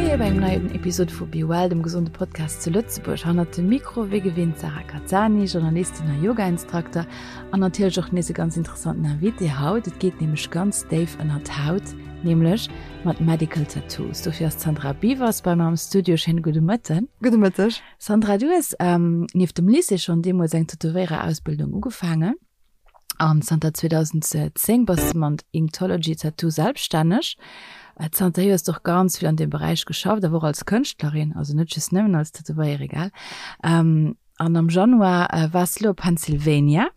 Moie bei engem neien Episode vu Be Well, dem gesonde Podcast zu Lëtzebuerg. Hannert dem Mikro wéi gewinnt Sarah Cazzani, Journalistin a Yoga-Instrukter an natierlech och nees e ganz interessanten Invité haut. Et geet nämlech ganz déif ënnert d'Haut, nämlech mat Medical Tattoos. Dofir ass d'Sandra Biewers bei mer am Studio. Schéine gudde Mëtten. Gudde Mëtteg. Sandra, du hues nieft dem Lycée schonn deemools eng Tätowéiererausbildung ugefaangen an zanter 2010 bass de mat Inktology Tattoo selbststänneg. Zanterhier hues de och ganz vill an deem Beräich geschafft, awer och als Kënschtlerin, also net just nëmmen als Tätowéierin, gell? An am Januar waars de lo a Pennsylvania.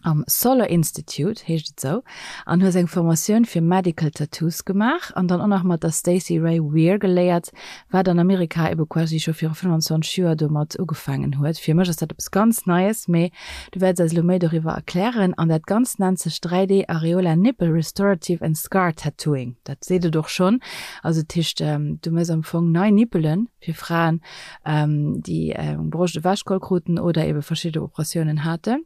Am Solar Institute, heescht et sou, an hues eng Formatioun fir Medical Tattoos gemaach an dann och nach mat der Stacey Rae Weir geléiert, wat an Amerika ebe quasi scho viru 25 Joer domat ugefaangen huet. Fir mech ass dat eppes ganz Neies, mee du wäerts eis elo méi doriwwer erklären. An dat Ganzt nennt sech 3D Areola Nipple Restorative and Scar Tattooing. Dat seet et och schonn. Also dat heescht, du méchs am Fong nei Nippelen fir Fraen, déi eng Broscht ewechgeholl kruten oder ebe verschidde Operatiounen haten.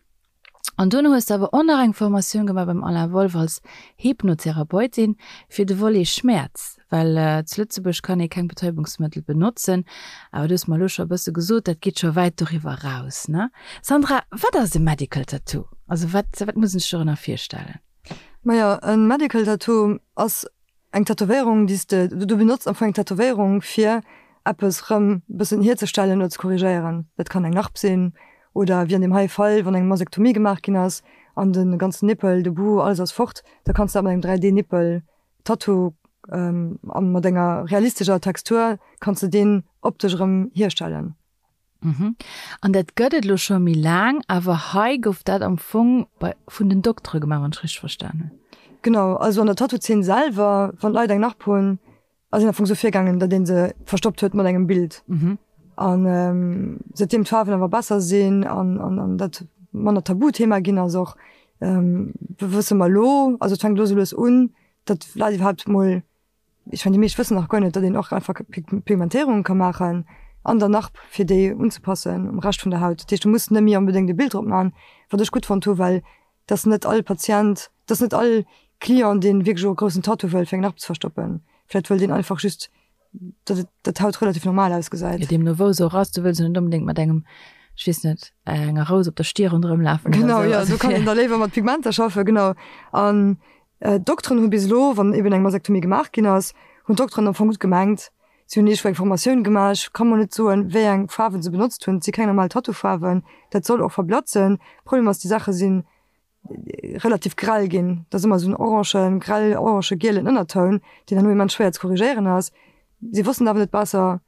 An dunn hues de awer och nach eng Formatioun gemaach beim Alain Wolff als Hypnotherapeutin fir de Volet Schmäerz, well zu Lëtzebuerg kann ee keng Betäubungsmëttel benotzen. Awer du hues mer elo scho e bësse gesot, dat geet scho wäit doriwwer eraus, ne? Sandra, wat ass e Medical Tattoo? Also wat, wat muss een sech dorënner virstellen? Majo, e Medical Tattoo ass Eng Tätowéierung, déi s de, du benotz am Fong eng Tätowéierung fir eppes rëm bëssen hierzestellen oder ze korrigéieren. Dat kann eng Narb sinn oder wéi an deem hei Fall, wann eng Masektomie gemaach ginn ass an de ganzen Nippel, de Bout, alles ass fort, da kanns de dat mat engem 3D Nippel Tattoo a mat enger realistescher Textur kanns de deen optesch erëm hierstellen. Mhm. An dat gëtt et elo scho méi laang, awer hei gouf dat am Fong bei, vun den Doktere gemaach, wann ech richteg verstan hunn. Genau, also an der Tattoo-Zeen selwer, wann d'Leit eng Narb hunn, ass een am Fong esou virgaangen, datt ee se verstoppt huet mat engem Bild. Mhm. An säitdeem d'Faarwen awer besser sinn an, an, an dat manner Tabuthema ginn ass och, wësse mer elo, also et fänkt elo sou lues un, datt d'Leit iwwerhaapt mol Ech mengen, déi meescht wëssen nach guer net, datt een och einfach Pigmentéierunge ka maachen an der Narb, fir déi unzepassen um Rescht vun der Haut. Dat heescht, du muss net méi onbedéngt e Bild drop maachen, wat ech gutt fonnt hu, well et ass net all Patient, et ass net all Client, dee wierklech och e groussen Tattoo wëll, fir eng Narb ze verstoppen. Vläicht wëllt een einfach just, datt et, datt d'Haut relativ normal ausgesäit. Jo, deemno wou se och ass, du wëlls jo net onbedéngt mat engem, ech weess net, enger Rous op der Stier ronderëm lafen oder esou. Genau, jo, do kann een da léiwer mat Pigmenter schaffen, genau. An D'Dokteren hu bis elo, wann eben eng Masektomie gemaach ginn ass, hunn d'Dokteren am Fong gutt gemengt. Si hunn iergendwou eng Formatioun gemaach. Ech ka mol net soen, wéi eng Faarwen se benotzt hunn. Et si keng normal Tattoo-Faarwen. Dat soll och verblatzen. Problem ass, déi Saache si relativ grell ginn. Et ass ëmmer esou en orangen, grell orange gielen Ënnertoun, deen herno immens schwéier ze korrigéieren ass. Si wossten awer net besser.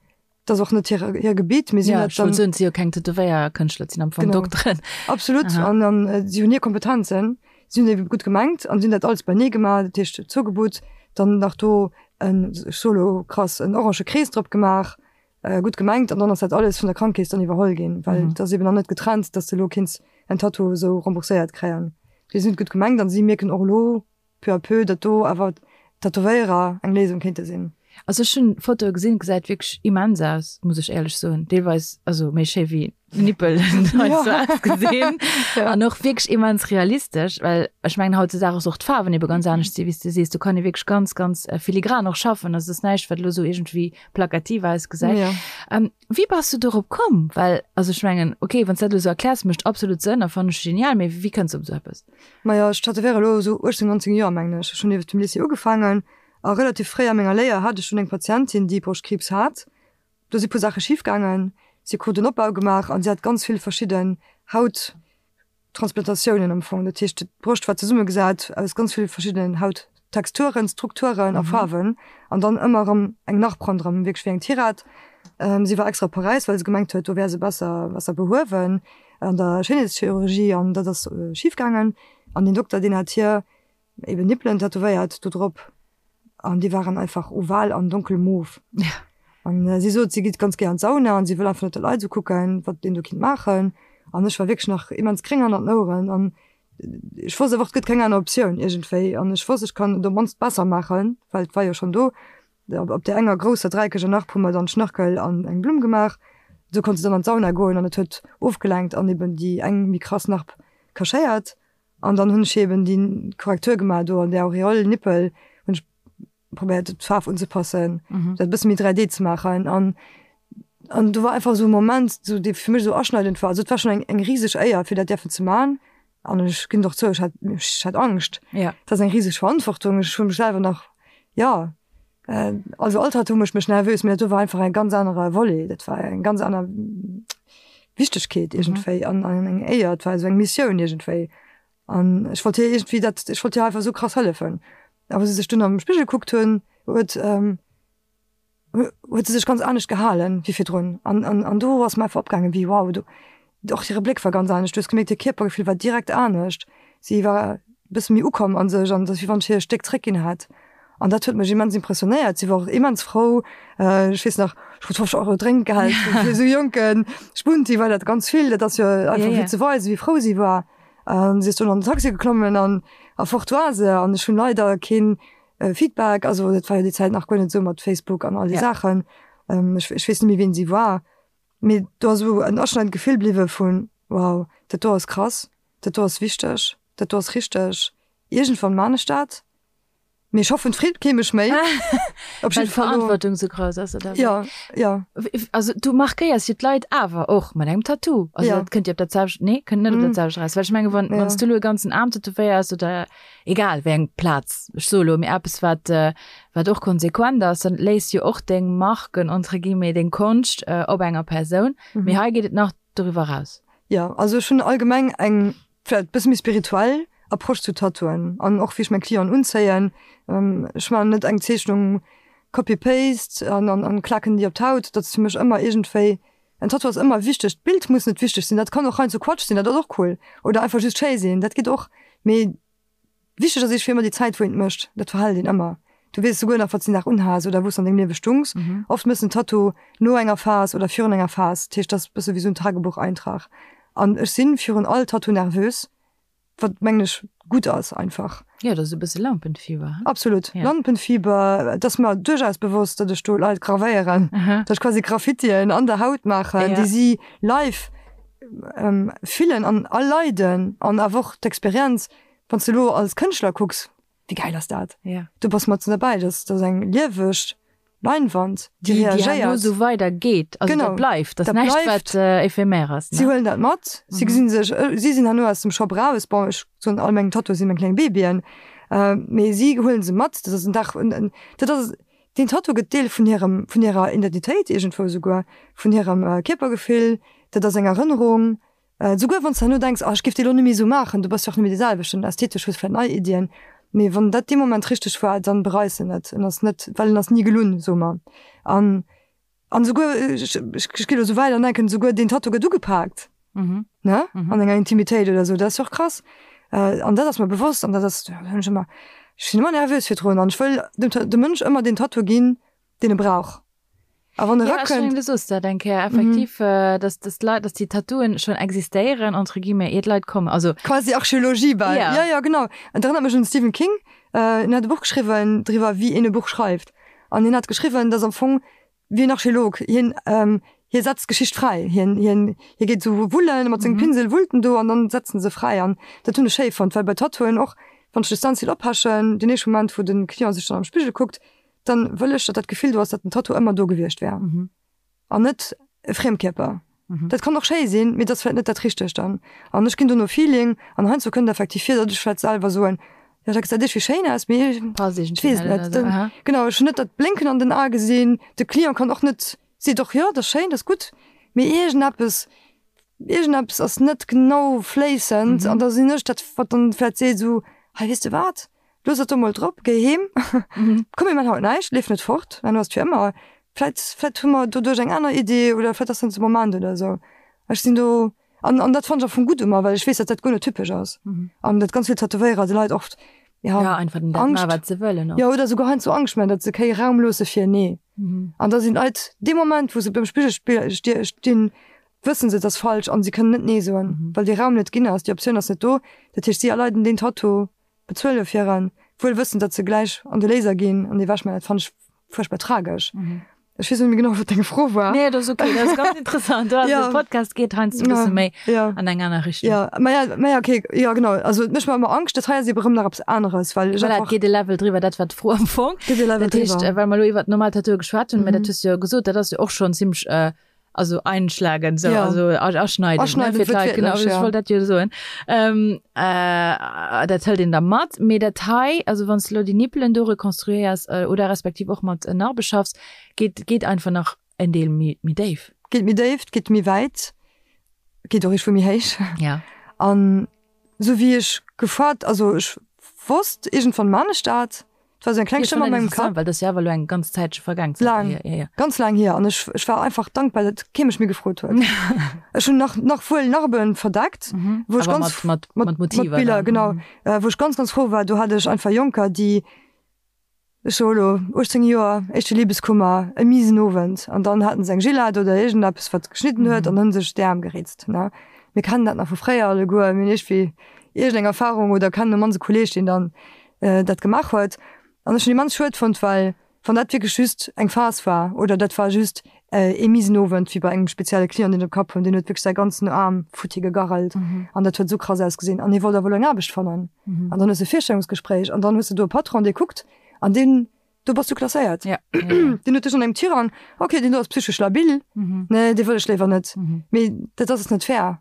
Dat ass och net hir, hir Gebitt, mee si hunn dat dann. Ja, si jo keng Tätowéierkënschtler, et sinn am Fong Dokteren. Absolut, an an si hunn hir Kompetenzen, si hunn ebe gutt gemengt an si hunn dat alles beinee gemaach, dat heescht zougebutt, dann nach do en, ech soe lo krass, en orange Krees drop gemaach, gutt gemengt, an dann ass dat alles vun der Krankekeess dann iwwerholl ginn, well et ass eben nach net getrennt, dass de lo kinns en Tattoo esou rembourséiert kréien. Déi sinn et gutt gemengt an si mierken och elo, peu à peu, datt do awer d'Tätowéierer eng Léisung kéinte sinn. Also ech hunn Fotoe gesinn, gesäit wierklech immens aus, muss ech éierlech soen. Deelweis also méi schéi wéi Nippel heiansdo ausgesinn an och wierklech immens realistesch, well ech mengen hautzedaag ass och d'Faarwen ebe ganz anescht si wéi s de sees. Do kann ee wierklech ganz ganz filigran och schaffen, also et ass näischt wat elo esou iergendwéi plakativ ausgesäit. Wéi bass du dorop komm? Well also ech mengen ok, wann s dat elo esou erkläers mécht absolut Sënn a fannen ech genial, mee wéi kënns de op esou eppes? Majo, ech tätowéiere elo esou 18, 19 Joer, mengen ech. Ech hunn nieft dem Lycée ugefaangen a relativ fréi a menger Léier hat ech dunn eng Patientin, déi Broschtkriibs hat. Do si puer Saache schif gaangen. Si krut en Opbau gemaach a si hat ganz vill verschidden Hauttransplantatioune am Fong. Dat heescht, d'Broscht war zesummegesat aus ganz vill verschiddenen Hauttexturen, Strukturen a Faarwen an dann ëmmer erëm eng Narb ronderëm, wierklech wéi eng Tirette. Si war extra op Paräis, well se gemengt huet, do wär se besser, besser behuewen. An der Schéinheetschirurgie an dat ass schif gaangen an deen Dokter deen hat hir eben Nippelen tätowéiert do drop an déi waren einfach oval an donkel mof. An si sot si geet ganz gär an d'Sauna an si wëll einfach net datt d'Leit esou kucken wat een do kinnt maachen an ech war wierklech nach immens gréng hannert den Oueren an ech wosst einfach et gëtt keng aner Optioun iergendwéi an ech wosst ech kann et op mannst besser maachen well et war jo schonn do. Op där enger grousser dräiekeger Narb hu mer dann Schnörkel an eng Blumm gemaach. Esou konnt se dann an d'Sauna goen an et huet ofgelenkt an eben déi eng méi krass Narb cachéiert. An dann hunn ech eben déi Korrektur gemaach do an där Auréole Nippel hunn ech. probéiert d'Faarf unzepassen, dat e bësse méi 3D ze maachen an an do war einfach esou e Moment, esou dee fir mech esou aschneidend war. Also et war schonn eng eng riseg Éier fir dat däerfen ze man an ech ginn et och zou, ech hat ech hat Angscht. Ja. Dat ass eng riseg Verantwortung, ech hu mech selwer nach, jo, also all Tattoo mécht mech nervös, mee dat do war einfach e ganz anere Volet, dat war eng ganz aner Wichtegkeet iergendwéi an an eng Éier, et war esou eng Missioun iergendwéi. An ech wollt hir iergendwéi dat, ech wollt hir einfach esou krass hëllefen. A wou se sech dunn am Spigel gekuckt hunn, huet, huet se sech ganz anescht gehalen wéi virdrun. An, an, an do ass mer einfach opgaangen, wéi wow, do, och hire Bléck war ganz anescht. Du hues gemierkt, hir Kierpergefill war direkt anescht. Si war e bësse méi ukomm a sech an et ass wéi wann ech hir e Stéck zréckginn hätt. An dat huet mech immens impressionéiert. Si war och immens frou. Ech weess nach, ech krut 50 Euro Drénkgeld fir esou jonke Spunti war dat ganz vill. Dat ass jo einfach fir ze weisen, wéi frou si war. An si ass dunn an den Taxi geklommen an a fort war se. An ech hunn leider keen Feedback, also dat war jo déi Zäit nach guer net esou mat Facebook an all déi Saachen. Ech ech weess net méi wien si war. Mee do ass esou en aschneidend Gefill bliwwe vun, wow, dat do ass krass, dat do ass wichteg, dat do ass richteg, iergendwann maan ech dat. Mee ech hoffen, d'Freed kee mech méi. Op Well d'Verantwortung sou grouss ass, oder wéi? Ja, ja. Also du markéiers jo d'Leit awer och mat engem Tattoo. Also ja. dat kënnt jo op dat selwecht, nee, kënnt net op dat selwecht eraus. Well ech menge wann, ja. wann s du elo e ganzen Aarm tätowéiers oder egal wéi eng Plaz, ech soe elo, mee eppes wat, wat och konsequent ass, dann léiss jo och deng Marken, entre guillemets, deng Konscht op enger Persoun. Mee hei geet et nach doriwwer eraus. Ja, also ech hunn allgemeng eng vläit e bësse méi spirituell Approche zu Tattooen an och wéi ech meng Clienten unzéien. Ech maachen net eng Zeechnung copy paste an an klaken déi op d'Haut. Dat ass fir mech ëmmer iergendwéi, en Tattoo ass ëmmer wichteg. D'Bild muss net wichteg sinn, dat kann och heiansdo Quatsch sinn, dat ass och cool oder einfach just schéi sinn, dat geet och. Mee Wichteg ass iergendwéi ëmmer déi Zäit, wou een et mécht. Dat verhält een ëmmer. Du weess souguer nach, wat s de den Dag unhas oder wou s de an dengem Liewe stungs. Oft méchs de en Tattoo no enger Phas oder virun enger Phas. Dat heescht, dat ass e bësse wéi esou en Tagebucheintrag. An ech si virun all Tattoo nervös, wat, mengen ech, gutt ass einfach. Jo, dat ass e bësse Lampenfieber, he? Absolut. Lampenfieber. Et ass mer duerchaus bewosst, datt ech do Leit gravéieren, datt ech quasi Graffitien an der Haut maachen, déi si live fillen an erleiden an awer och d'Experienz Wann s de elo als Kënschtler kucks, wéi gäil ass dat? Ja. Du bass matzen derbäi, dat ass eng lieweg Leinwand, déi reagéiert. Déi herno esou weider geet, also dat bleift, dat ass näischt wat éphémère ass. Si huelen dat mat, si gesinn sech, si sinn herno aus dem Shop raus, bon ech soen all meng Tattooe si meng kleng Babyen, mee si huelen se mat, dat ass en Dag, dat ass, deen Tattoo gëtt Deel vun hirem, vun hirer Identitéit iergendwou esouguer, vun hirem Kierpergefill, dat ass eng Erënnerung. Souguer wann s de herno denks, ah ech géif déi elo net méi esou maachen, du bass jo och net méi dee selwechten, ästhetesch hues vläit nei Iddien, mee wann dat dee Moment richteg war, dann bereis en net, en ass net, well en ass ni gelunn, soe mer. An an souguer, ech ech ginn elo esou wäit an denken, souguer deen Tattoo gëtt ugepaakt, ne, an enger Intimitéit oder esou, dat ass jo och krass. An dat ass mer bewosst an dat ass, da hunn ech ëmmer, ech sinn ëmmer nervös virdrun an ech wëll dem dem Mënsch ëmmer deen Tattoo ginn, deen e brauch. A wann e Ja, ech mengen, rakënnt. du soos dat eng Kéier effektiv, dass, dass d'Leit, dass déi Tattooen schonn existéieren, entre guillemets, ier d'Leit kommen. Also. Quasi Archeologie bal. Ja. Ja, ja, genau. Et erënnert mech un de Stephen King. En hat e Buch geschriwwen driwwer, wéi een e Buch schreift. An hien hat geschriwwen, dass am Fong wéi en Archeolog, hien, hie setzt d'Geschicht fräi. Hien, hien, hie geet esou wullen, mat sengem Pinsel wullt en do an dann setzt en se fräi. An dat hunn ech schéi fonnt, well bei Tattooen och, wann ech de Stencil oppechen, deen éischte Moment, wou de Client sech dann am Spigel kuckt, dann wëll ech, datt dat Gefill do ass, datt den Tattoo ëmmer do gewiescht wär an net e Friemkierper. Dat kann och schéi sinn, mee dat ass vläicht net dat Richtegt dann. An ech ginn do no Feeling an heiansdo kënnt effektiv vir, datt ech vläicht selwer soen, jo dat gesäit iergendwéi schéin aus, mee ech weess et net. Genau, ech hunn net dat Blénken an den Ae gesinn. De Client kann och net, seet och, jo dat ass schéin, dat ass gutt, mee iergendeppes, iergendeppes ass net genau fléissend an da sinn ech dat, wat dann vläicht seet esou, hei weess de wat, Looss et do mol drop, géi heem, komm mir man haut näischt, leef net fort, herno ass et fir ëmmer, vläit, vläit hu mer doduerch eng aner Idee oder vläit ass dat de Moment oder esou. Ech sinn do, an, an dat fannen ech am Fong gutt u mer, well ech weess, datt dat guer net typesch ass an datt ganz vill Tätowéierer de Leit oft, ja, Ja, einfach den dat Angscht, man, wat se wëllen och. jo, oder souguer heiansdo Angscht man, datt se kee Raum loosse fir Nee. An da sinn d'Leit dee Moment, wou se beim Spigel stinn, wëssen se, et ass falsch an se kënnen net Nee soen, well dee Raum net ginn ass, déi Optioun ass net do. Dat heescht, si erleiden deen Tattoo Bezuele fir en, wuel wëssend, datt se gläich an de Laser ginn an ewech. Mä dat fannen ech fuerchtbar tragesch. Ech weess net méi genau, wat deng Fro war. Nee, dat ass okay, dat ass ganz interessant. Du, Ja. De Podcast geet heiansdo e bësse Ja, méi ja. an eng aner Richtung. Ja, ma ja, ma ja, okay, ja genau. Also et mécht mer ëmmer Angscht. Dat hei ass ebe rëm nach eppes aneres, well ech Voilà, et einfach geet e Level driwwer, dat war d'Fro am Fong. geet e Level Dat heescht, driwwer. äh, well mer elo iwwer normal Tattooe geschwat hunn, mä dat Mhm. hues du jo gesot, dat ass jo och schonn zimmlech, äh, also einschlagen, sou, Ja. also aschneiden, ne, Aschneiden, fir d'Leit, genau, wuertwiertlech, ech ja. wollt dat jo soen. Ähm, äh, dat hëlt een da mat, mee dat hei, also wann s de elo déi Nippelen do rekonstruéiers, äh, oder respektiv och mat Narbe schaffs, geet, geet einfach nach en Deel méi, méi déif. Geet méi déif, geet méi wäit, geet och iergendwou méi héich. Ja. An sou wéi ech gefoart, also ech wosst, iergendwann man ech dat, Et war sou eng kleng Stëmm an mengem Kapp. Well dat ass jo awer elo eng ganz Zäitche vergaang zanterhier. Laang, Ja, ja. ganz laang hier. An ech, ech war einfach dankbar, datt kee mech méi gefrot huet. Ech hunn nach, nach wuel Narben verdeckt, wou ech Awer ganz mat, mat, mat Motiver mat Biller, dann. genau, wou ech ganz, ganz frou war. Do hat ech einfach Jonker, déi, ech soe elo 18 Joer, éischte Libeskummer, e miesen Owend, an dann haten se eng Gillette oder iergendeppes, wat geschnidden huet, an hunn sech d'Äerm geritzt, ne. Mir kennen dat nach vu fréier alleguer, mir hunn iergendwéi iergendeng Erfarung oder kennen e mannst e Kolleeg, deen dann dat gemaach huet. An ech hunn immens schued fonnt, well wann dat wierklech just eng Phas war oder dat war just ee miesen Owend wéi bei engem spezielle Client, deen ech am Kapp hunn, deen huet wierklech säi ganzen Aarm futti gegarrelt an dat huet esou krass ausgesinn an hie wollt awer elo eng Aarbecht fannen. An dann hues de e Virstellungsgespréich an dann hues de do e Patron, dee kuckt an deen, do bass du klasséiert. Deen huet dech an engem Tirang, okay, deen do ass psychesch labil, nee, dee wëll ech léiwer net. Mee dat ass net fair.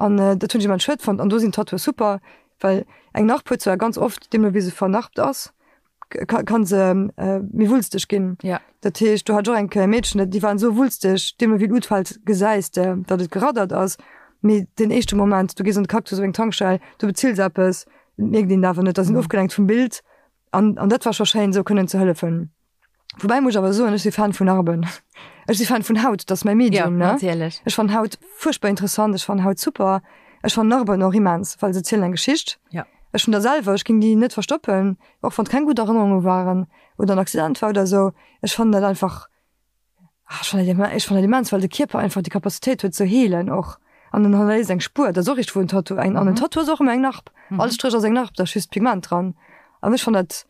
An dat hunn ech immens schued fonnt. An do sinn Tattooe super, well eng Narb huet zwar ganz oft, deemno wéi se vernarbt ass, ka se méi wulsteg ginn. Ja. Dat heescht, do hat ech och eng Kéier e Meedchen, déi waren esou wulsteg, deemno wéi et utfält, gesäis de, datt et geraddert ass. Mee den éischte Moment, du gees an de Cactus op eng Tankstell, du bezills eppes, et mierkt een et awer net, da sinn ofgelenkt vum Bild. An dat war scho schéin, esou kënnen ze hëllefen. Woubäi muss ech awer soen, ech si Fan vun Narben. Ech si Fan vun Haut, dat ass mäi Medium, Ja, ne? natierlech. Ech fannen Haut fuerchtbar interessant, ech fannen Haut super. Ech fannen Narben och immens, well se zielen eng Geschicht. Ja. Ech hunn der selwer, ech géing déi net verstoppen, och wann et keng gutt Erënnerunge waren oder en Accident war oder esou. Ech fannen dat einfach, ah, ech fannen dat, ech fannen dat immens, well de Kierper einfach déi Capacitéit huet ze heelen och. An en hannerléisst eng Spuer, dat ass och richteg wou en Tattoo, eng, an en Tattoo ass och ëmmer eng Narb. All Stréch ass eng Narb, da ass just Pigment dran. An ech fannen dat,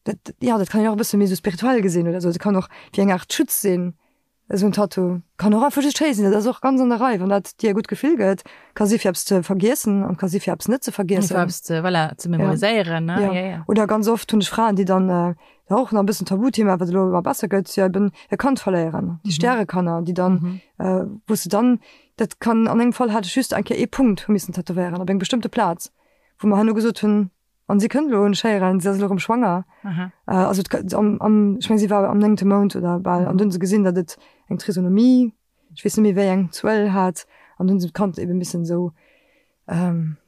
Dat, ja, dat kann een och e bësse méi esou spirituell gesinn oder esou. Dat kann och wéi eng Aart Schutz sinn, esou en Tattoo. Kann och einfach just schéi sinn, dat ass och ganz an der Rei, wann dat dir e gutt Gefill gëtt. Ka si fir eppes ze vergiessen an ka si fir eppes net ze vergiessen. Fir eppes ze, voilà, ze memoriséieren, ne? Ja. Ja, ja. Oder ganz oft hunn ech Fraen, déi dann, dat och nach e bëssen Tabuthema, wat elo ëmmer besser gëtt, jo eben e Kand verléieren, déi Stärekanner, déi dann, wou s de dann, dat kann, an engem Fall hat ech just eng Kéier ee Punkt hu missen tätowéieren op eng bestëmmte Plaz, wou mer herno gesot hunn, An si kënnt elo un Schéieren, si ass elo erëm schwanger. Aha. Also et am, am, ech meng si war am néngte Mount oder bal, an dunn hu se gesinn, datt et eng Trisonomie, ech weess net méi wéi eng Zuel hat, an dunn hu se d'Kand ebe missen esou,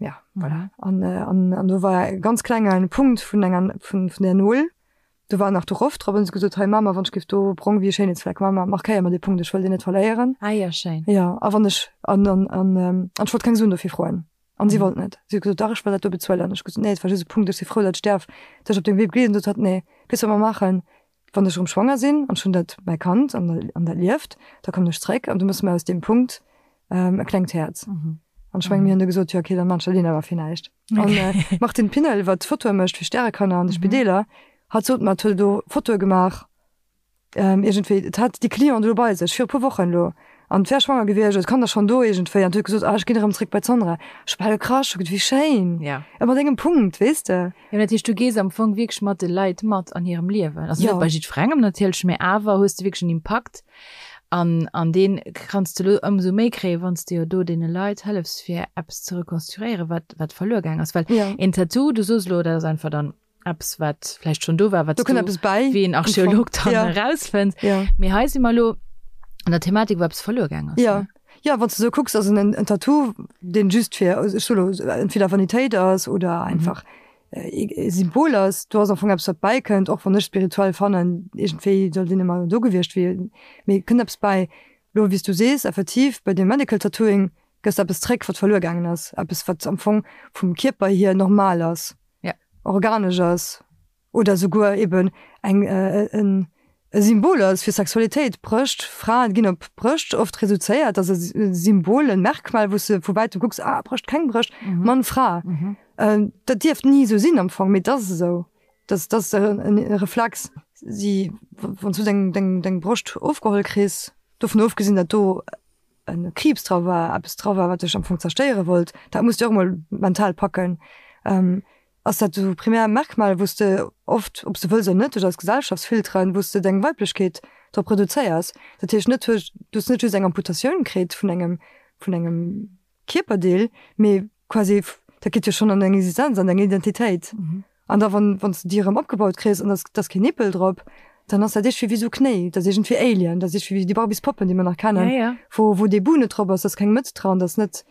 ja voilà. An, an, an do war e ganz klenge Punkt vun enger, vun, vun där Nol, do war nach de Roff drop, an hu se gesot, hei Mama, wann ech géif do brong wéi e Schéinheetsfleck, Mama, markéier mer dee Punkt, ech wëll deen net verléieren. Ah jo, schéin. Jo, a wann ech, an, an, an, an ech wollt keng Suen dofir froen. An si wollt net. Si huet gesot, dach, ech wëll dat do bezuelen. Ech hu gesot, nee, et war just e Punkt, ech si frou, datt ech däerf dech op dengem Wee begleeden. Sot hatt, nee, weess wat mer maachen, wann ech erëm schwanger sinn an ech hunn dat, mäi Kand, an an dat lieft, da kommen ech zréck an du méchs mer aus deem Punkt e klengt Häerz. An ech menge mir hunn du gesot, jo okay, dann maan ech dat een awer fir näischt. An d'Martine Pinnel, wat Fotoe mécht fir Stärekanner an de Spideeler, hatt sot mer, et huet elo Fotoe gemaach, Iergendwéi, et hat déi Cliente elo bei sech, viru puer Wochen elo, an et wär schwanger gewiescht, et Kand ass schonn do iergendwéi, an huet gesot, ah ech ginn erëm zréck bei d'Sandra. Ech hu bal gekrasch, hu gesot, wéi schéin, Ja. a mat engem Punkt, weess de. Jo, dat heescht, du gees am Fong wierklech mat de Leit mat an hirem Liewen. Also Jo. net bei jiddwerengem natierlech, mä awer hues de wierklech en Impakt an, an dee kanns de elo ëmsou méi kréien, wann s de jo do deene Leit hëllefs, fir eppes ze rekonstruéieren, wat, wat verluer gaang ass. Well Ja. een Tattoo, du soos elo, dat ass einfach dann eppes wat vläicht schonn do war, wat Do kënnt eppes bäi. wéi en Archeolog dann Ja. erausfënnt. Ja. Mee hei si mer elo an der Thematik, wou eppes verluer gaang ass. Ja. Ne? Ja, wann s de sou kucks, ass en en Tattoo, deen just fir, ech soe lo, entweder Vanitéit ass oder einfach e Symbol ass. Do ass am Fong eppes, wat bäikënnt, och wann ech spirituell fannen, iergendwéi sollt een ëmmer do gewiescht wier, mee kënnt eppes bäi. Lo, wéi s du sees, effektiv, bei deem Medical Tattooing gëss de eppes zréck, wat verluer gaangen ass, eppes, wat am Fong vum Kierper hier normal ass. Ja. Organesch ass oder souguer eben eng en e Symbol ass fir Sexualitéit. Brëscht, Fraen ginn op Brëscht oft reduzéiert, dat ass e Symbol, en Merkmal, wou s de vu wäitem kucks, ah Brëscht, keng Brëscht, Mann, Fra. Dat dierft ni esou sinn am Fong, mee et ass esou. Dat ass e Reflex. Si, wann s du deng, deng, deng Broscht ofgeholl kriss, dovun ofgesinn, datt do e Kriibs dra war, eppes dra war, wat dech am Fong zerstéiere wollt, dat muss de och emol mental packen, ass dat esou primär Merkmal, wou s de oft, ob s de wëlls oder net, duerch eis Gesellschaftsfilteren, wou s de deng Weiblechkeet drop reduzéiers. Dat heescht net, du hues net just eng Amputatioun kritt vun engem, vun engem Kierperdeel, mee quasi, dat geet jo schonn an deng Existenz, an deng Identitéit. An da wann, wann s de déi erëm opgebaut kriss an da ass keen Nippel drop, dann ass dat iergendwéi wéi sou Knéi, dat ass iergendwéi Alien, dat ass iergendwéi wéi déi Barbies-Poppen, déi mer nach kennen, wou, wou dee Bou net drop ass, da ass keng Mëtz dran, da ass net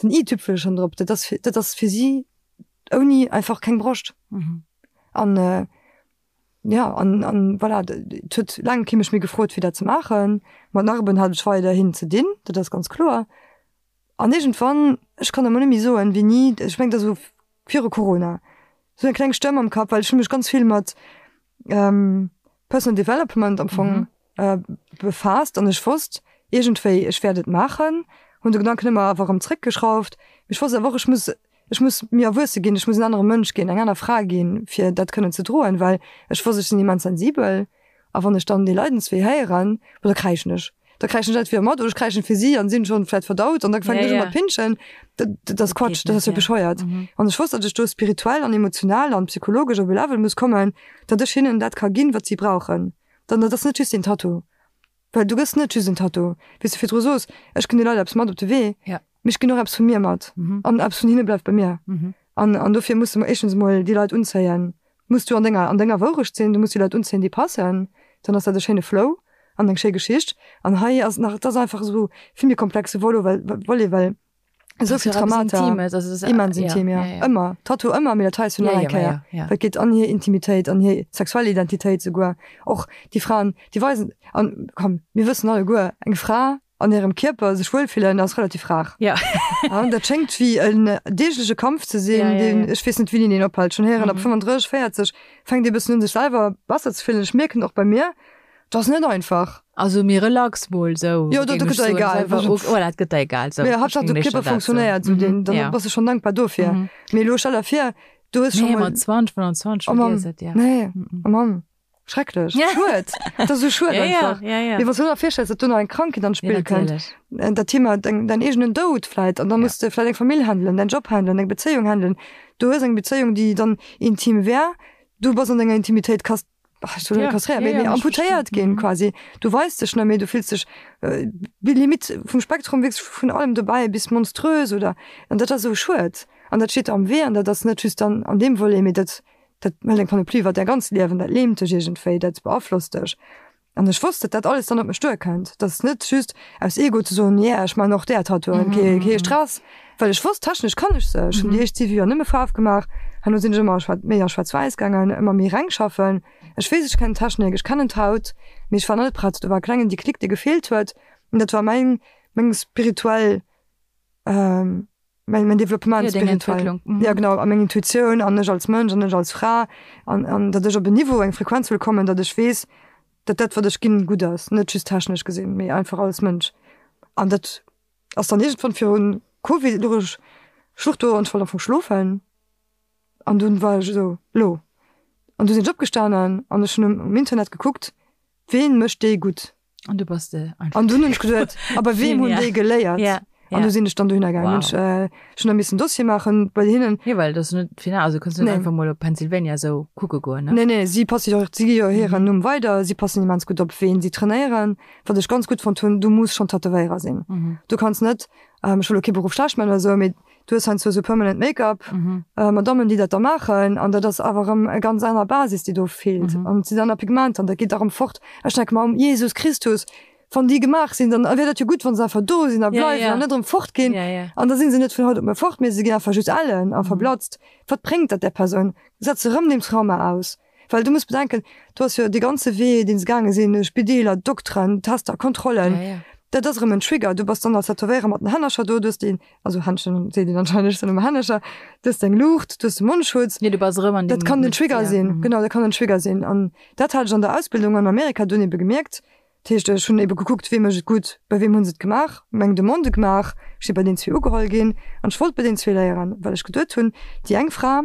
den i-Tüpfelchen drop. Dat ass fir, dat ass fir si ouni einfach keng Broscht. An jo, an, an voilà, et huet laang kee mech méi gefrot, fir dat ze maachen. Mat Narben hat ech weiderhin ze dinn, dat ass ganz kloer. An iergendwann, ech kann der mol net méi soen, wéini, ech mengen, dat ass esou viru Corona, esou eng kleng Stëmm am Kapp, well ech hu mech ganz vill mat Personal Development am Fong befaasst an ech wosst iergendwéi, ech wäert et maachen, hunn de Gedanken ëmmer awer erëm zréckgeschrauft, mee ech wosst awer och, ech muss, ech muss méi erwuesse ginn, ech muss en anere Mënsch ginn, eng aner Fra ginn, fir dat kënnen ze droen, well ech wosst, ech sinn immens sensibel. A wann ech dann dee Leidenswee héieren, bo da kräischen ech. Da kräischen ech entweder mat oder ech kräischen fir si an sinn schonn vläit verdaut an da fänken ech u mat pinschen. Dat, dat ass Quatsch, dat ass jo bescheuert. An ech wosst, datt ech do spirituell an emotional an psychologesch op e Level muss kommen, datt ech hinnen dat ka ginn, wat si brauchen. Dann, dat ass net just een Tattoo. Well du gëss net just en Tattoo. Wéi s du virdru sos, ech ginn de Leit eppes mat op de Wee, mee ech ginn och eppes vu mir mat. An eppes vun hinne bleift bei mir. An, an dofir muss de éischtens emol déi Leit unzéien, muss du an denger, an denger Wourecht sinn, du muss déi Leit unzéien, déi passen, dann ass dat e schéine Flow an eng schéi Geschicht. An hei ass nach, et ass einfach esou vill méi komplexe Volo, well, Volet, well esou vill Traumata, immens intim, ja, ëmmer, Tattoo ëmmer, mee dat hei ass jo nach eng Kéier, well et geet an hir Intimitéit, an hir sexuell Identitéit souguer. Och déi Fraen, déi weisen, an komm, mir wëssen alleguer, eng Fra an hirem Kierper sech wuelfillen ass relativ rar. Ja. An dat schéngt wéi en deegleche Kampf ze sinn, ja, ja, ja. ech weess net wéini deen ophält. Schonn héieren, ab 35, 40 fänkt ee bëssen un sech selwer besser ze fillen. Ech mierken och bei mir, dat ass net einfach. Also méi relax mol sou. Jo, dat gëtt der egal. Voilà, et gëtt der egal. Sou. Mee Haaptsaach de Kierper funktionéiert, sou deen, dann bass de schonn dankbar dofir. Mee elo stell der vir, du hues scho mol. Nee, mat 20, 25 vergiess et, ja. Nee, oh Mann. Schrecklech. Ja. Schued. Dat ass esou schued ja, einfach. Ja, ja, ja. Mee wann s du der virstells, datt do nach eng Krankheet an d'Spill ja, kënnt, äh, dat Thema, deng, dein eegenen Doud vläit, an dann ja. muss de vläit eng Famill handelen, dein Job handelen, eng Bezéiung handelen. Du hues eng Bezéiung, déi dann intim wär, du bass an denger Intimitéit kast ach, ich soll ja. kastréiert, ja, ja, amputéiert ginn mhm. quasi. Du weis dech net méi, du fills dech äh, Limit vum Spektrum wierklech vun allem dobäi bis monströs oder an dat ass esou schued. An dat steet am Wee an dat ass net just dann an deem Volet, mee dat Dat hëlt eng Panoplie iwwer däi ganzt Liewen, dat lähmt dech iergendwéi, dat beaflosst dech. An ech wosst, datt dat alles dann op mech duerkënnt. Dat ass net just aus Ego ze soen, yeah, ech maachen och där Tattooen, kee, kee Stress. Well ech wosst, technesch kann ech se. Ech hunn déi éischt siwe Joer nëmme Faarf gemaach, herno sinn ech ëmmer a méi a Schwaarz-Wäiss gaangen, ëmmer méi reng schaffen. Ech weess, ech kennen d'Technik, ech kennen d'Haut, mee ech war nach net prett. Do war e klengen Déclic, dee gefeelt huet. An dat war mäin, meng spirituell, Mäin, mäin Développement Ja, deng spirituell. Entwécklung. Mhm. Ja, genau, a meng Intuitioun an ech als Mënsch an ech als Fra an, an datt ech op en Niveau, eng Frequenz wëll kommen, datt ech weess, datt dat, wat ech ginn, gutt ass. Net just technesch gesinn, mee einfach als Mënsch. An dat ass dann iergendwann virun Covid, louch ech, ech louch do an ech wollt am Fong schlofen an dunn war ech esou, Lo. An du sinn ech opgestanen an ech hunn um, um Internet gekuckt, ween mécht déi gutt? An du bass de einfach. An dunn hunn ech geduet, a bei weem hunn déi geléiert? Ja, ja. An du sinn ech dann dohinner gaangen. Wow. Hunn ech, äh, ech hunn da missen Dossier maachen bei hinnen. Jo, well dat ass net final, also kënns net nee. einfach mol op Pennsylvania esou kucke goen, ne? Nee, nee, si passe jo, si gi jo hiren mhm. Numm weider, si passen immens gutt op, ween si trainéieren. Wat ech ganz gutt fonnt hunn, du muss schon Tätowéierer sinn. Mhm. Du kanns net, ähm, ech wëll lo kee Beruff schlecht man oder esou, mee Du hues heiansdo esou permanent Make-up, Madammen, déi dat da maachen, an dat ass awer erëm e ganz aner Basis, déi do feelt. An et sinn aner Pigmenter an dat geet da erëm fort. Ech denke mer, Jesus Christus, wann déi gemaach sinn, dann wier dat jo gutt, wa se einfach do sinn a bleiwen an net erëm fortginn. An da si se net vun haut op muer fort, mee se ginn einfach just ellen a verblatzt. Wat bréngt dat där Persoun? Setz se erëm deem Trauma aus. Well du muss bedenken, du ass jo dee ganze Wee, deen se gaange sinn, Spideeler, Dokteren, Tester, Kontrollen, Ja, ja. dat ass erëm en Trigger. Du bass dann als Tätowéierer mat den Hännercher do, du hues déi, also Händschen seet een anscheinend, ech soen ëmmer Hännercher, du hues deng Luucht, du hues de Mondschutz. Jo, du bass erëm an deem. Dat kann den Trigger ja. sinn, genau, dat kann en Trigger sinn. An dat hat ech an der Ausbildung an Amerika dunn ebe gemierkt. Dat heescht, ech hunn ebe gekuckt, wee mécht et gutt, bei weem hu se et gemaach, meng Demande gemaach, ech si bei deenen zwee ugeholl ginn an ech wollt bei deenen zwee léieren, well ech geduet hunn, déi eng Fra,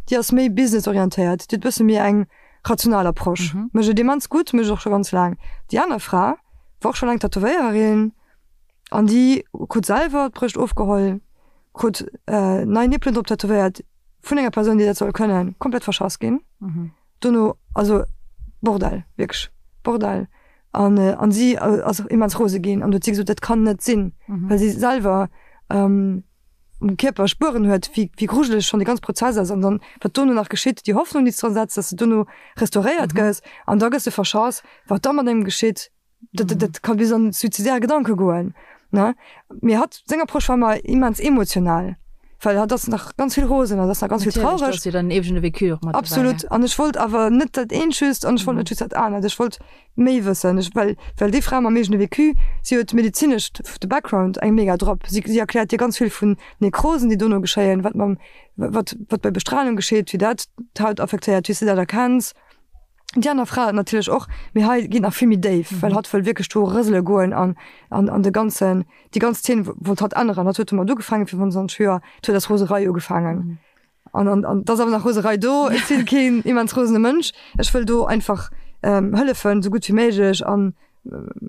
déi ass méi businessorientéiert, déi huet e bësse méi eng rational Approche. Mhm. Mécht et immens gutt, mécht et och scho ganz laang. Déi aner Fra war och scho laang Tätowéiererin an déi krut selwer d'Brëscht ofgeholl, krut nei Nippelen drop tätowéiert vun enger Persoun, déi dat soll kënnen, komplett verschass ginn. Mhm. Dono, also Bordell, wierklech Bordell. An, an si ass immens rose ginn an huet si gesot, dat kann net sinn, mhm. well si selwer ähm, um Kierper Spueren huet, wéi, wéi grujeleg schonn dee ganz Prozess ass an dann, wat dono nach geschitt, déi Hoffnung, déi s dran setz, dass de dono restauréiert mhm. gëss an da gëss de verschass, wat da mat engem geschitt, dat, dat, dat kann bis an suizidär Gedanke goen, ne? Mee hatt, seng Approche war ëmmer immens emotional, well hatt ass nach ganz vill rosen, hatt ass nach ganz vill Natierlech, do traureg. ass jo dann eegene Vécu och mat dobäi, Absolut. An ech wollt awer net dat eent just an ech wollt net just dat anert. Ech wollt méi wëssen. Ech, well, well déi Fra mam eegene Vécu, si huet medezinesch de Background eng mega drop. Si, si erkläert dir ganz vill vun Nekrosen, déi dono geschéien, wat mam, wat, wat bei Bestralung geschitt, wéi dat d'Haut affektéiert, wéi s de dat erkenns. Déi aner Fra natierlech och, mee hei geet nach vill méi déif, well hatt wëll wierklech do rësele goen an an an de ganzen, déi ganz Zeen wollt hatt änneren. Hatt huet domat ugefaangen fir 25 Joer, et huet aus Roserei ugefaangen an an an et ass awer nach Roserei do. Ech sinn keen immens rosene Mënsch, ech wëll do einfach hëllefen, esou gutt wéi méiglech an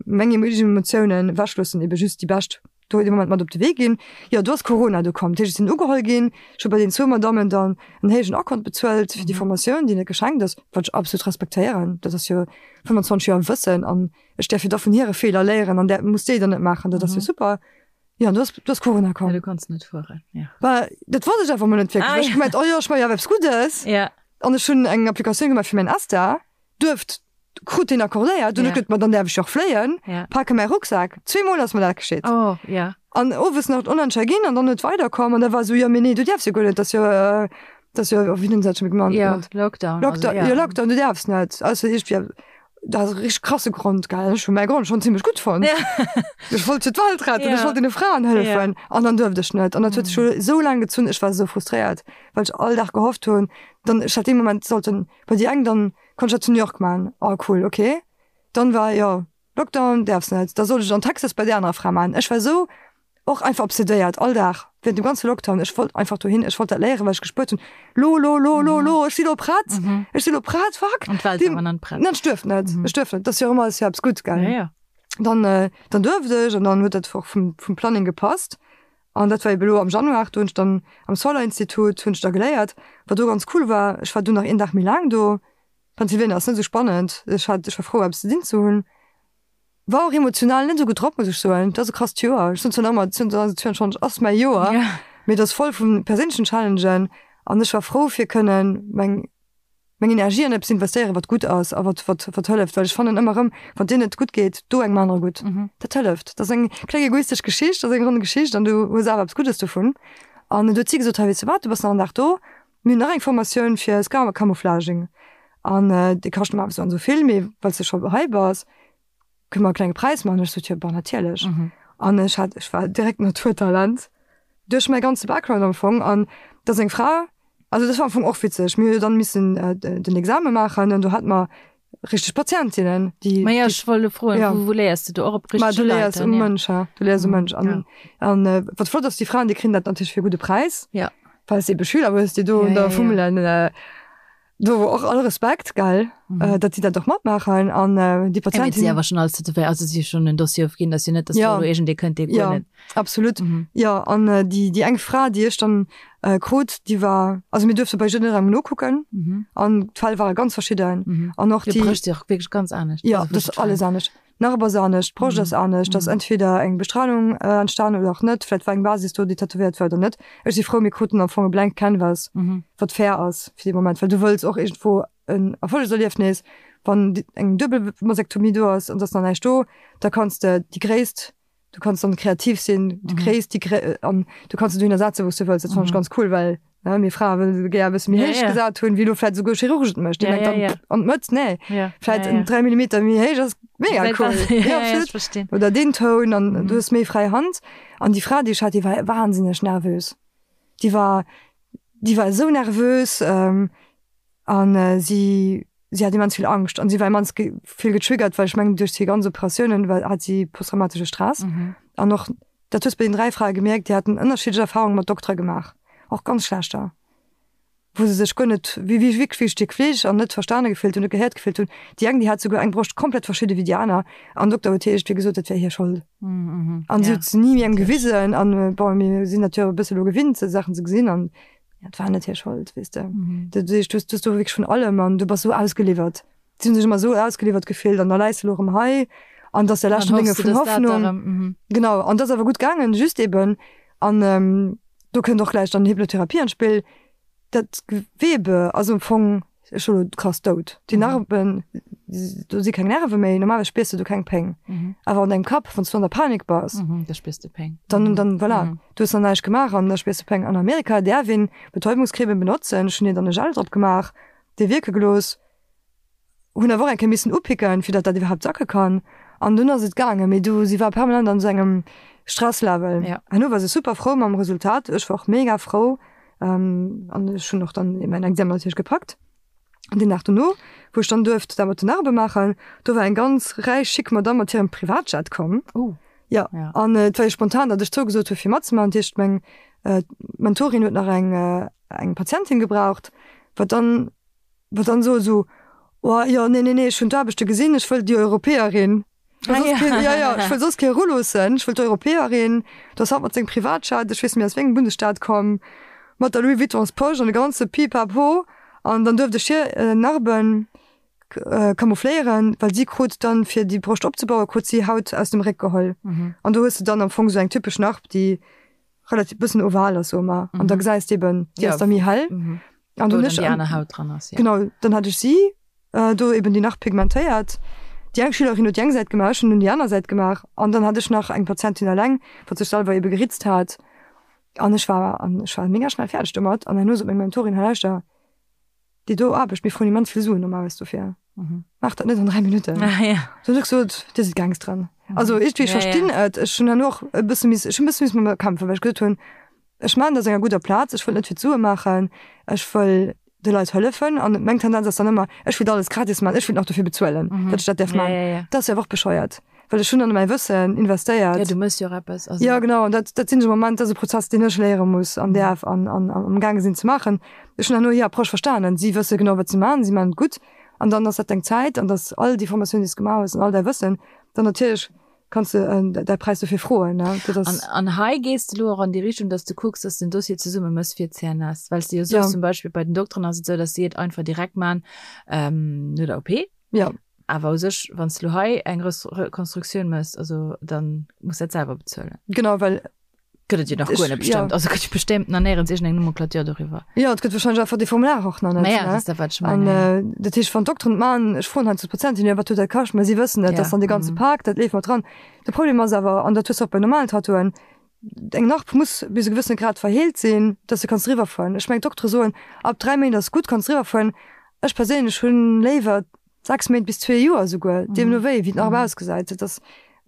meng eegen Emotiounen ewechloossen, ebe just déi bescht do dee Moment mat op de Wee ginn. Jo, do ass Corona do komm. Dat heescht, ech sinn ugeholl ginn. Ech hu bei den zwou Madammen dann en héijen Akkont bezuelt fir déi Formatioun, déi net geschenkt ass, wat ech absolut respektéieren. Dat ass jo 25 Joer Wëssen an ech däerf jo da vun hire Feeler léieren an där muss déi dann net maachen. Dat ass jo super. Jo, an do ass, do ass Corona komm. Ja, du konns net fueren, ja. Bah, dat wosst ech einfach mol net wierklech. Ah, Ech hu gemengt, oh jo, ech maache jo awer eppes Guddes. Ja. An ech hunn eng Applikatioun gemaach fir mäin ESTA. Duerft krut deen accordéiert, dunn huet gesot, ma dann däerf ech jo och fléien, pake mäi Rucksak. Zweemol ass mer dat geschitt. Oh, ja. An owes nach d'Onentscher ginn an dann huet weider komm an da war esou, jo mee nee, du däerfs jo guer net, dat ass jo, dat ass jo, wéi hunn se dat scho méi genannt? Ja, Lockdown. Lockdown, jo Lockdown, du däerfs net. Also iergendwéi, dat ass e richteg krasse Grond, gell. Ech hu mäi Grond schonn zimmlech gutt fonnt. Ja. Ech wollt jo d'Welt retten, ech wollt deene Fraen hëllefen an dann duerft ech net. An dat huet sech jo esou laang gezunn, ech war esou frustréiert, well ech all Dag gehofft hunn, dann ech hätt dee Moment sollten Bei déi eng dann konnt ech dat zu New York man. Oh cool, ok. Dann war jo Lockdown, däerfs net. Da sollt ech an Texas bei där anerer Fra man. Ech war sou och einfach obsedéiert all Dag während dem ganze Lockdown. Ech wollt einfach dohin, ech wollt dat léieren, well ech gespuert hunn, lo, lo, lo, lo, lo, ech si lo prett, ech si lo prett, fuck. An d'Welt war awer nach net prett. Ech duerft net, ech duerft net. Dat ass jo ëmmer, ass jo eppes gutt, gell? Ja, ja. Dann, dann duerft ech an dann huet dat och vum, vum Planning gepasst. An dat war ebe lo am Januar, do hunn ech dann am Solar Institut hunn ech da geléiert. Wat do ganz cool war, ech war du nach een Dag méi laang do. Pennsylvania ass net esou spannend, ech hat, ech war frou eppes ze dinn ze hunn. War och emotional net esou gutt drop, muss ech soen. Dat ass e krasst Joer. Ech soen zwar nach ëmmer, 2022 ass mäi Joer, mee et ass voll vu perséinlechen Challengen an ech war frou fir kënnen meng meng Energie an eppes investéieren, wat gutt ass a wat, wat, wat hëlleft, well ech fannen ëmmer erëm, wann dir net gutt geet, do engem anere gutt. Dat hëlleft. Dat ass eng kleng egoistesch Geschicht, dat ass eng ronn Geschicht an du hues awer eppes Guddes dovun. An du huet si gesot, hei weess de wat, du bass nach en Dag do, mir hunn nach eng Formatioun fir Scar Camouflaging an déi kascht normal esou an esou vill, mee well s de scho hei bass, Kënne mer e klenge Präis maachen? Ech sot, jo, bon, natierlech. An ech hat, ech war direkt Naturtalent duerch mäi ganze Background am Fong. An da seng Fra, also dat war am Fong och witzeg, mir hu jo dann missen den Exame maachen an do hate mer richteg Patientinnen, déi. Ma jo, ech wollt elo froen, wou, wou léiers de do? Och op richtege Leit? Ma du léiers um Mënsch, ha, du léiers um Mënsch. An, an wat flott ass, déi Fraen, déi kréien dat natierlech fir e gudde Präis, well s de ebe Schüler hues, déi do da fummelen. Do och all Respekt, gell, mhm. datt si dat och matmaachen an äh, déi Patienten. Si awer schon alles tätowéiert, also si schon en Dossier ofginn, datt si net, datt ja. do iergendee kënnt, dee guer net. Absolut. Mhm. Ja, an äh, déi, déi eng Fra, déi ech dann äh, krut, déi war, also mir duerfte bei jidderengem nokucken mhm. an d'Fäll ware ganz verschidden. Mhm. An och déi. Brëscht si och wierklech ganz anescht. Ja, also, dat ass alles anescht. Narb ass anescht, d'Broscht ass anescht, ass entweder eng Bestrahlung entstan oder och net, vläit war eng Basis do, déi tätowéiert war oder net. Ech si frou, mir kruten am Fong e blank Canvas, wat fair ass fir dee Moment, well du wëlls och iergendwou en Erfollegserliefnis. Wann eng duebel Masektomie do ass an et ass nach näischt do, da kanns de déi Gréisst Du kanns dann kreativ sinn, du kréis déi Gré an du kanns se dohinner setzen, wou s du wëlls. Dat fannen ech ganz cool, well ne, mir Frae wëllen gär e bësse méi héich gesat hunn, wéi elo vläit esouguer Chirurg et mécht. Dee mengt dann, an d'Mëtt, nee, vläit en 3 Millimeter méi héich ass mega cool. Ja, absolut. Oder deen Toun an du hues méi fräi Hand. An déi Fra, déi ech hat, déi war wahnsinneg nervös. Déi war, déi war esou nervös. An si si hat immens vill Angscht an si war immens vill getriggert, well ech mengen duerch hir ganz Operatiounen war hat si posttraumatesche Stress. An och dat hues bei den 3 Frae gemierkt, déi haten ënnerschiddlech Erfarunge mat Doktere gemaach, och ganz schlechter. wou se sech guer net, wéi wéi wierklech wéi e Stéck Fleesch an net verstane gefillt hunn, net gehéiert gefillt hunn. Déi eng, déi hat souguer eng Broscht komplett verschidde wéi déi aner an den Dokter huet hir iergendwéi gesot, dat wär hir Schold. An si huet se ni engem gewisen an bon, mir sinn dat jo e bësse lo gewinnt, esou Saachen ze gesinn an ja, et war net hir Schold, weess de. Dat heescht, du hues du hues do wierklech vun allem an du bass esou ausgeliwwert. Si hunn sech ëmmer esou ausgeliwwert gefillt an da läis de lo erëm hei an dat ass der leschten Dénge vun Hoffnung. Genau, an dat ass awer gutt gaangen, just eben an do kënnt och gläich dann Hypnotherapie an d'Spill, dat Gewebe ass am Fong scho lo krass dout. Déi Narben, do si keng Nerve méi, normalerweis spiers de do keng Péng. Awer an dengem Kapp, wann s du an der Panik bass, da spiers de Péng. Dann, dann voilà, du hues nach näischt gemaach an da spiers de Péng. An Amerika däerf een Betäubungscremen benotzen, ech hunn hir dann e Gel drop gemaach, dee wierke gelooss. Hunn awer och eng Kéier missen upicken, fir datt dat iwwerhaapt sacke kann. An dunn ass et gaangen. Mee du, si war permanent an esou engem Stresslevel. Ja. Herno war se super frou mam Resultat. Ech war och mega frou. An ech hunn och dann mäin Examen natierlech gepackt. An deen Dag dono, wou ech dann duerft dat mat den Narbe maachen, do war eng ganz räich, chic Madamm mat hirem Privatjet komm. Oh. Ja. Ja. An et war jo spontan, datt ech zougesot hu fir matzemaachen. Dat heescht, meng Mentorin huet nach eng, eng Patientin gebraucht, wat dann Wat dann sot esou, oh jo, nee, nee, nee, ech hunn d'Aarbechte gesinn, ech wëll déi Europäerin. Ech wëll soss keen, ja, ja, ech wëll soss kee eruloossen, ech wëll d'Europäerin. Do ass hatt mat sengem Privatjet, ech weess net méi aus wéi engem Bundesstaat komm, mat der Louis Vuittons Posch an de ganze Pipapo. An dann duerft ech hir Narben camoufléieren, well si krut dann, fir déi Broscht opzebauen, krut si Haut aus dem Réck geholl. An do hues de dann am Fong esou eng typesch Narb, déi relativ bëssen oval ass, soe mer. An da gesäis de eben, déi ass da méi hell. An dann déi aner Haut dran ass. Ja. Genau, dann hat ech si äh, do eben déi nach pigmentéiert. Déi eng Schülerin huet déi eng Säit gemaach, ech hunn dunn déi aner Säit gemaach. An dann hat ech nach eng Patientin eleng, wat sech selwer ebe geritzt hat. An ech war an ech war mega schnell fäerdeg domat. An herno sot meng Mentorin, Hei lauschter, déi do Aarbecht, mir froen immens vill Suen normalerweis dofir. Mhm. Maach dat net an 3 Minutten. Ah, ja. Dann hunn ech gesot, Dir sidd Gangsteren. Also iergendwéi, ech Ja, ja. verstinn et. Ech hunn herno och e bësse miss, ech hunn e bësse missen mat mir kämpfen, well ech gesot hunn, Ech maachen dat aus enger gudder Plaz, ech wëll net fir d'Sue maachen, ech wëll de Leit hëllefen. An meng Tendenz ass dann ëmmer, ech wëllt alles gratis maachen, ech wëllt nach dofir bezuelen, datt ech dat däerf maachen. Ja, ja, ja. Dat ass jo awer och bescheuert, well ech hunn dann mäi Wëssen investéiert. Ja, du méchs jo och eppes. Also. Ja, genau. An dat, dat sinn esou Momenter, dat ass e Prozess, deen ech léiere muss an däerf an, an amgaange sinn ze maachen. Ech hunn herno hir Approche verstanen. Si wësse genau, wat se maachen, si maachen et gutt. An dann ass dat deng Zäit an dass all déi Formatioun, déi s de gemaach hues an all däi Wëssen, dann natierlech kanns de däi Präis dofir froen. Ne? Dat ass an, an hei gees de lo och an déi Richtung, dass de kucks, dass den Dossier zesumme mëss fir d'CNS. Well s de jo soos, ja. zum Beispill bei den Dokteren ass et esou, dass si et einfach direkt man ähm, no der OP. Ja. Awer u sech, wann s de lo hei eng Rekonstruktioun mëss, also dann muss dat selwer bezuelen. Genau, well Gëtt et jo nach guer net bestëmmt. Also gëtt jo bestëmmt nach néierens iergendeng Nomenclature doriwwer. Jo, et gëtt wahrscheinlech einfach dee Formular och nach net. Naja, dat ass dat, wat ech mengen. An dat heescht, wann d'Dokteren et maachen, ech froen heiansdo d'Patienten, jo, wat huet dat kascht? Mä si wëssen et, dat ass dann dee ganze Pak, dat leeft mat dran. De Problem ass awer, an dat hues de och bei normalen Tattooen, eng Narb muss bis e gewëssene Grad verheelt sinn, dass de kanns driwwer fueren. Ech mengen, d'Doktere soen, ab 3 Méint ass gutt, kanns driwwer fueren. Ech perséinlech hunn léiwer 6 Méint bis zwee Joer esouguer, deemno wéi, wéi d'Narb ausgesäit. Dat ass,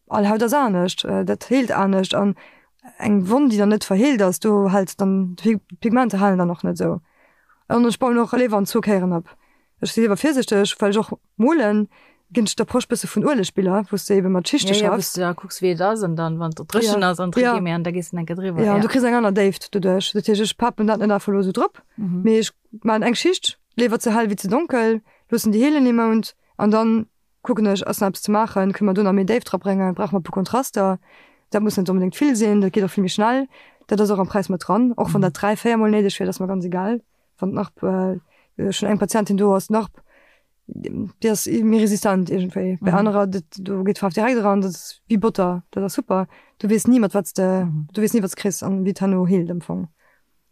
all Haut ass anescht, dat heelt anescht an eng Wonn, déi dann net verheelt ass, do hält dann, d'Pigmenter halen dann och net esou. An ech bauen och léiwer an zwou Kéieren op. Ech si léiwer virsichteg, well ech och molen, ginn ech d'Approche bësse vun Uelegbiller, wou s de ebe mat Schichte schaffs. Ja, ja, wou s de da kucks, wéi et ass an dann, wann et dréchen ass, an ja. méi an da gees de enke driwwer. Ja, an du kriss eng aner Déift doduerch. Dat heescht, ech papen dat net einfach elo esou drop, mee ech maachen eng Schicht, léiwer ze hell wéi ze donkel, loossen déi heelen ee Mount an dann kucken ech, ass nach eppes ze maachen, kënne mer do nach méi Déift drabréngen, brauche mer e puer Kontraster. Dat muss net onbedéngt vill sinn, dat geet och vill méi schnell. Dat ass och am Präis mat dran, och wann dat 3, 4 mol néideg wier, dat ass mer ganz egal. Wann d'Narb, ech hunn eng Patientin do ass d'Narb, déi ass méi resistent iergendwéi. Bei anerer, dat do geet d'Faarf direkt eran, dat ass wéi Botter, dat ass super. Du weess ni mat wat s de, du weess ni wat s de kriss an wéi et herno heelt am Fong.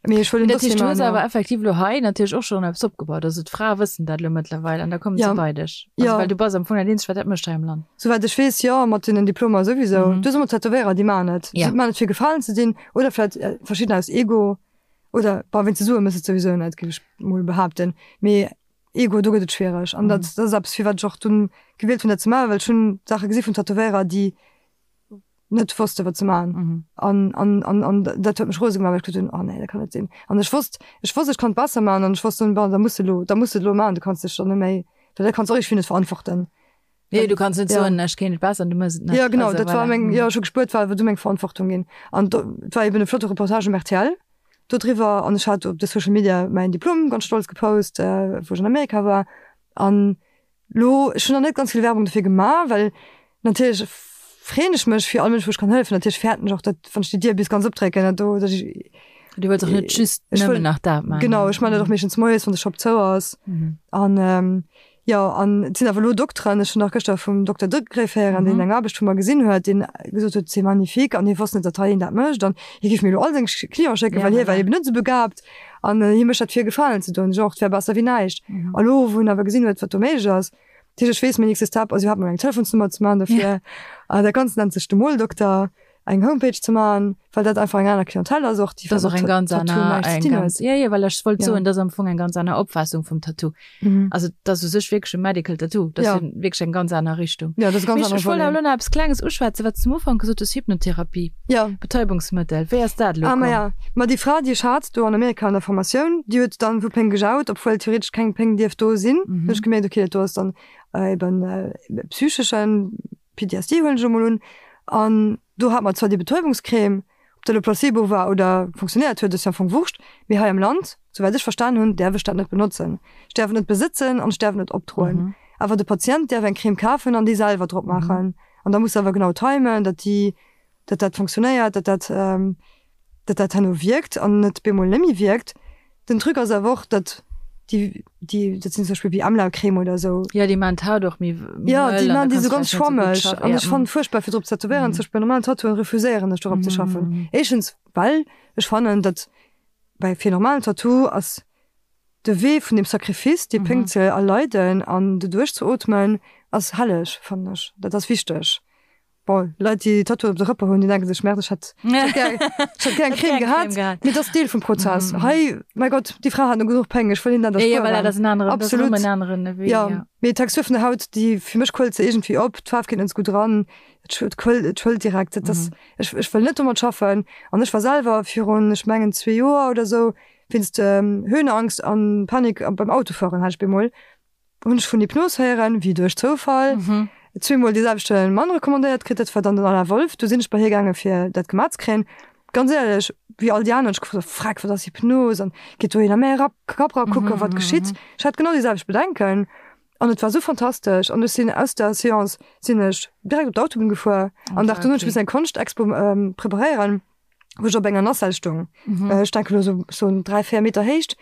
Mee ech wëll en Dat heescht, du hues awer effektiv elo hei natierlech och schonn eppes opgebaut. Also d'Frae wëssen dat elo mëttlerweil an da kommen se bei dech. Also Ja. well du bass am Fong dat eenzegt, wat dat mécht hei am Land. Souwäit ech weess, jo, mat deenen Diplomer souwisou. Du hues ëmmer Tätowéierer, déi maachen et. Ja. Si maachen et fir gefalen ze dinn oder vläicht verschiddener aus Ego oder, bon, wéinst de Sue méchs de et souwisou net, géif ech mol behaapten. Mee Ego, do gëtt et schwiereg. An dat, dat ass eppes, firwat ech och dunn gewielt hunn, dat ze maachen, well ech hunn Saache gesi vun Tätowéierer, déi net wosste wat ze man mhm. an, an, an, an dat huet mech rose gemaach, well ech geduet hunn, oh nee, dat kann net sinn. An ech wosst, ech wosst, ech kann et besser man an ech wosst dann, bon, da muss de lo, da muss de lo man, du kanns dech dann net méi, well dat kanns och iergendwéi net verantworten. Nee, du kanns net Ja. soen, ech kéint et besser an du mëss et net. Ja, genau, Also, dat war voilà. meng, Mhm. ja, ech hu gespuert, war awer du meng Verantwortung ginn. An do, et war eben e flotte Reportage um rtl. Dodriwwer an ech hat op de Social Media mäin Diplom ganz stolz gepost, wou ech an Amerika war. An lo, ech hunn nach net ganz vill Werbung dofir gemaach, well natierlech freeën ech mech fir all Mënsch, wou ech kann hëllefen. Natierlech fäerten ech och, datt wann ech déi Dier bis ganz opdrécken, datt do, datt ech. Du wëlls och net just nëmmen nach dat maachen. Genau, ech maachen dat och meeschtens moies, wann de Shop zou ass. An Jo, an et sinn awer elo Dokteren, ech hunn nach gëschter vum Dokter Degréff héieren, deen eng Aarbecht vu mer gesinn huet, deen gesot huet, c'est magnifique, an hie wosst net, datt hei een dat mécht, an hie géif mir elo all seng Cliente schécken, well hie war eben net esou begabt an hie mécht dat fir e Gefalen ze doen. Ech och, et wär besser wéi näischt. A lo, wou en awer gesinn huet, wat do méiglech ass, dat heescht, ech weess, mäin nächste Step ass iwwerhaapt mol eng Telefonsnummer ze maachen dofir. Dat Ganzt nennt sech de Moldokter. eng Homepage ze maachen, well dat einfach eng aner Clientèle ass och, déi mat eng ganz Tattoo näischt ze dinn huet. Jo, jo, well ech wollt soen, dat ass am Fong eng ganz aner Opfaassung vum Tattoo. Also dat ass u sech wierklech e Medical Tattoo, dat ass jo wierklech eng ganz aner Richtung. Jo, dat ass e ganz anere Volet. Ech wollt awer elo nach eppes Klenges uschwätzen, wat s de um Ufank gesot hues, Hypnotherapie, Betäubungsmëttel, wéi ass dat elo komm? Ah, maja, ma déi Fra, déi ech hat do an Amerika an der Formatioun, déi huet dann vu Péng gejaut, obwuel theoretesch keng Péng dierft do sinn. Hunn ech gemierkt, okay, dat do ass dann eben psycheschen PTSD huelen ech emol un, an do hat mer zwar déi Betäubungscrème, ob dat elo Placebo war oder funktionéiert huet, ass jo am Fong Wurscht, mee hei am Land, souwäit ech verstan hunn, däerf ech dat net benotzen. Ech däerf et net besëtzen an ech däerf et net opdroen. Awer de Patient däerf eng Crème kafen an déi selwer drop maachen. An da muss se awer genau timen, datt déi, datt dat funktionéiert, datt dat, datt dat herno wierkt an net bemol net méi wierkt. Den Truc ass awer och, datt déi, déi, dat sinn zum Beispill wéi Amla-Crème oder esou. Jo, déi maan d'Haut och méi mëll. Jo, déi maan déi esou ganz schwammeg. An ech fannen et fuerchtbar fir drop ze tätowéieren. Zum Beispill bei normalen Tattooen refuséieren ech dorop ze schaffen. Éischtens well ech fannen, datt bei fir e normalen Tattoo ass de Wee vun dem Sacrifice, déi Péng ze erleiden an doduerch ze ootmen, ass helleg, fannen ech. Dat ass wichteg. Bon, Leit déi Tattooen op de Rëpper hunn, déi denke sech, Merde, ech hätt ech hätt gär eng Crème gehat. Mee dat ass Deel vum Prozess. Hei, mäi Gott, déi Fra hat no genuch Péng, ech wëll hinnen dat erspueren. Absolut. Jo, mee d'Textur vun der Haut, déi, fir mech quëllt se iergendwéi op, d'Faarf geet net esou gutt eran, et quëllt, et schwëllt direkt. Dat ass, ech ech wëll net domat schaffen. An ech war selwer virun, ech mengen zwee Joer oder esou, wéinst Höhenangst an Panik beim Autofueren hat ech bemol, Hunn ech vun Hypnos héieren, wéi duerch Zoufall. Zweemol dee selwechte Mann recommandéiert kritt, dat war dann den Alain Wolff. Du sinn ech bei hie gaange fir dat gemaach ze kréien. Ganz éierlech, wéi all déi aner hunn ech gefrot, Freck, wat ass Hypnos an geet dohin a mäi Kapp ra kucken, wat geschitt. Ech hat genau déi selwecht Bedenken an et war esou fantastesch an ech sinn aus der Seance sinn ech direkt op d'Autobunn gefuer an Dag dono hunn ech missen eng Konschtexpo preparéieren. wou ech op enger Nacelle stung. Mhm. Äh, ech denke lo so, so 3, 4 Meter Héicht.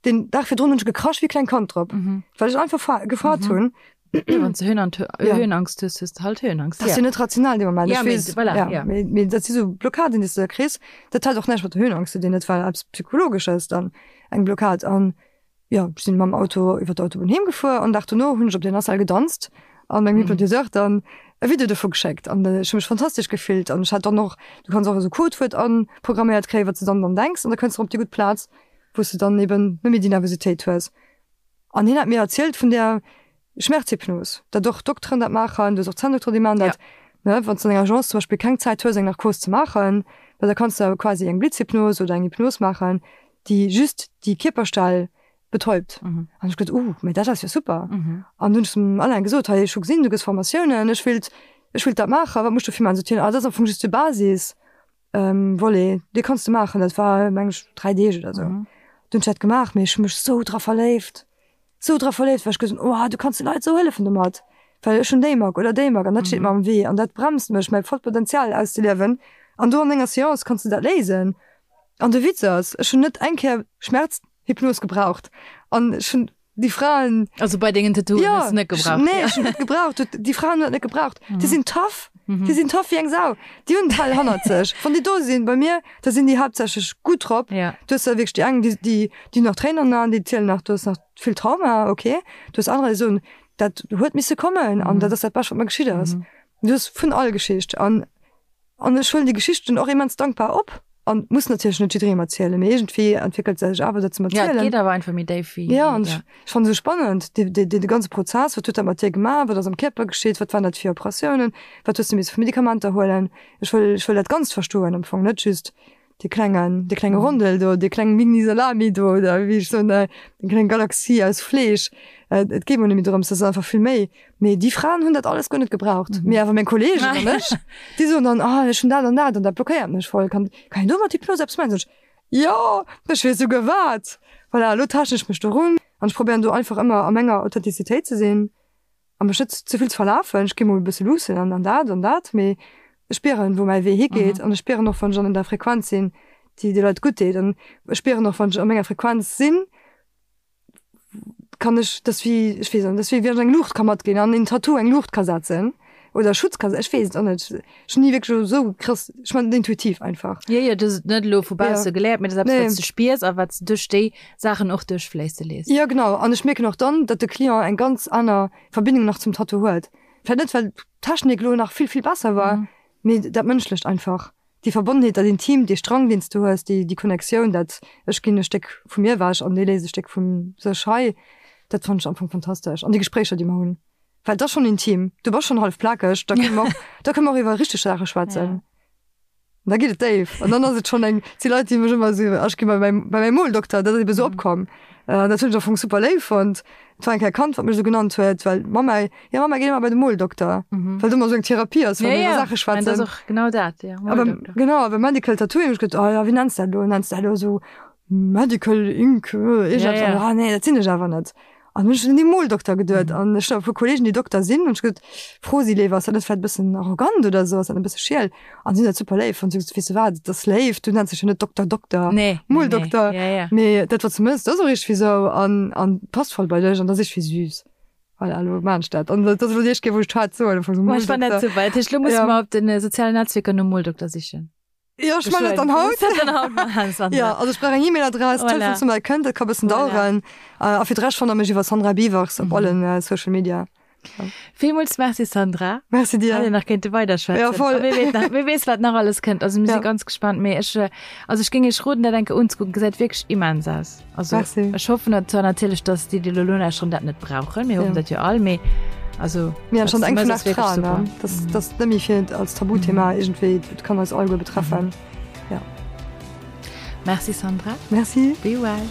Den Dag virdrun hunn ech gekrasch wéi kleng Kand drop, mhm. well ech einfach gefaart mhm. hunn. Ja, wann du Höhen ja. Höhenangst hues, hues du halt Höhenangst. Das ja. net rational de Moment. Ja, wees, voilà, ja. ja. Mee, mee, dat si so Blockaden, déi du da kriss. Dat hat och näischt mat der Höhenangst ze dinn, dat war eppes Psychologesches dann eng Blockad. An Jo, ech sinn mam Auto iwwer d'Autobunn heem gefuer an Dag dono hunn ech op der Nacelle gedanzt an mengem Hypnotiseur dann e Video dovu geschéckt an ech hu mech fantastesch gefillt an ech hat dann och, du kanns och esou Codewuert anprogramméiert kréien, wat s de dann dann denks an da kënns de op déi gutt Plaz, wou s de dann eben net méi déi Nervositéit hues. An hien hat mir erzielt vun där Schmerzhypnos, datt och Dokteren dat maachen, du hues och Zänndokteren, déi maachen dat, ne, wann s de an enger Agence zum Beispill keng Zäit hues eng Narkos ze maachen, well da kanns de quasi eng Blitzhypnos oder eng Hypnos maachen, déi just déi Kierperstell betäubt. Mhm. An ech gesot, uh, mee dat ass jo super. Mhm. An hunn ech zum Alain gesot, hei, ech hu gesinn, du gëss Formatiounen, ech wéilt, ech wéilt dat maachen, wat muss ech dofir maachen? Sot hien, ah, dat ass am Fong just de Basis, ähm, Volet, dee kanns de maachen. Dat war, meng ech, 3 Deeg oder sou. Mhm. Dunn hunn ech dat gemaach, mee ech hu mech sou dra verléift, sou dra verléift, well ech gesot hunn, oh, du kanns de Leit sou hëllefen domat, well ech hunn déi Mack oder déi Mack an dat steet mer am Wee an dat bremst mech, mäi vollt Potenzial auszeliewen. An do an enger Seance kanns de dat léisen. An de Witz ass, ech hunn net eng Kéier Schmerzhypnos gebraucht an ech hunn déi Fraen. Also bei dengen Tattooen ja, hues du net gebraucht? Nee, ech hunn net gebraucht. Déi Fraen hunn dat net gebraucht. Mhm. Déi sinn tough. Mhm. Déi sinn tough wéi eng Sau. Déi hunn d'Hell hannert sech. Wann déi do sinn bei mir, da sinn déi haaptsächlech gutt drop. Ja. Du hues da wierklech déi eng, déi, déi, déi nach Tréinen an den Aen, déi zielen nach, du hues nach vill Trauma, okay. Du hues anerer, déi soen, dat huet misse kommen an mhm. dat ass dat Bescht, wat mer geschitt ass. Mhm. Du hues vun all Geschicht an An ech huelen déi Geschichten och immens dankbar op an muss natierlech net jidderengem erzielen, mee iergendwéi entwéckelt se sech awer dat ze erzielen. Ja, et geet awer einfach méi déif wéi. Ja, an ech fannen esou spannend dee, dee, dee ganze Prozess, wat huet dat mat dir gemaach, wat ass am Kierper geschitt, wat waren dat fir Operatiounen, wat hues de misse fir Medikamenter huelen. Ech wëll, ech wëll dat Ganzt verstoen am Fong, net just dee klengen, dee klenge Rondel do, déi kleng Mini-Salami do oder wéi ech soen, déi kleng Galaxie aus Fleesch. Et geet mer net méi drëms, dat ass einfach vill méi. Mee déi Fraen hunn dat alles guer net gebraucht. Mee awer meng Kolleegen an ech, déi soen dann, ah ech hunn dat an dat an dat blockéiert mech voll, kann, kann een do mat Hypnos eppes maachen? Sot ech, Jo, ech weess souguer wat. Voilà, elo taaschten ech mech dorun an ech probéieren do einfach ëmmer a menger Authentizitéit ze sinn a mech net ze vill ze verlafen. Ech gi mol e bësse luussen an an dat an dat, mee ech spieren, wou mäi Wee higeet an ech spieren och, wann ech an der Frequenz sinn, déi de Leit gutt deet an ech spieren och, wann ech a menger Frequenz sinn, kann ech das wéi ech weess net, das wéi wéi wann ech eng Luucht ka matginn an een Tattoo eng Luucht ka setzen oder Schutz ka ech weess et och net. Ech hunn ni wierklech esou krass, ech man et intuitiv einfach. Jo, jo, du hues et net elo vu bausse geléiert, mee dat ass eppes, wat s du spiers a wat s du duerch déi Saachen och duerchfléisse léisst. Jo, genau. An ech mierken och dann, datt de Client eng ganz aner Verbindung nach zum Tattoo huet. Vläicht net, well d'Technik elo nach vill, vill besser war, mee dat Mënschlecht einfach. Déi Verbonnenheet, dat Intimt, dee Strang, deen s du hues, déi, déi Connectioun, dat ech ginn e Stéck vu mir ewech an dee léisst e Stéck vu sech hei, dat fannen ech am Fong fantastesch. An déi Gespréicher, déi mer hunn, well et ass schonn intim, du bass schonn hallef plakeg, da kënne mer och, da kënne mer och iwwer richteg Saache schwätzen. An da geet et déif. An dann ass et schonn eng, et si Leit, déi mech ëmmer esou, ech gi bei mäi, bei mäi Moldokter, dat ass ebe esou opkomm. An dat hunn ech am Fong super léif fonnt. Et war eng Kéier e Kand, wat mech esou genannt huet, well d'Mamma, jo Mamma geet ëmmer bei de Moldokter, well do ëmmer esou eng Therapie ass, wann mir iwwer Saache schwätzen. Dat ass och genau dat, jo, Moldokter. Genau, a beim Medical Tattooing hu ech geduet, oh jo, wéi nenns de dat elo? Nenns de dat elo esou Medical Ink, iergendepps? Ah nee, dat sinn ech awer net. An hunn ech un dee Moldokter geduet an ech hunn e puer Kollegen, déi Dokter sinn, hunn ech gesot, fro si léiwer, ass dat net vläicht e bëssen arrogant oder esou, ass dat net e bësse schiel? An si hunn dat super léif fonnt. Si hunn gesot, weess de wat, et ass léif, du nenns dech jo net Dokter Dokter, Nee, nee, nee. Moldokter, Ja, ja. mee dat wat s du mëss, dat ass och iergendwéi esou an an passt voll bei dech an dat ass iergendwéi süß. Voilà, elo maan ech dat. An dat ass elo déi éischt Kéier, wou ech d'Haart soen, am Fong esou Ech fann dat Moldokter. super. Dat heescht, elo musse Ja. mer op de sozialen Netzwierker nom Moldokter sichen. Jo, ech man dat dann haut. Dat dann haut maachen, Sandra. Ja, also ech brauch eng E-Mail-Adress, Voilà. Telefonsnummer, kënnt, dat ka bëssen Voilà. daueren. A fir d'Rescht fannt der mech iwwer Sandra Biewers op allen Social Media. Villmools Merci Sandra. Merci dir. Hätt een nach kéinte weiderschwätzen. Ja, voll. A wie weess nach, wie weess wat nach alles kënnt. Also mir si Ja. ganz gespannt. Mee ech, also ech géing iech roden dat eng Kéier unzekucken. Gesäit wierklech immens aus. Also Merci. ech hoffen dat zwar natierlech, dass déi, déi elo nolauschteren, dat net brauchen. Mir hoffen Ja. dat jo all, mee also Mir wat schon s du eng mëss, vun ass acht wierklech Fraen, super. ne? Das, das net méi fir als Tabuthema iergendwéi, et kann eis alleguer betreffen. Ja. Merci Sandra. Merci. Be well.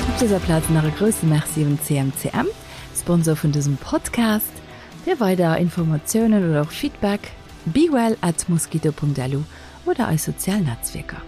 Op dëser Plaz nach e grousse Merci un CMCM, Sponsor vun dësem Podcast. Fir weider Informatiounen oder och Feedback, bewell at mosquito.lu oder eis sozial Netzwierker.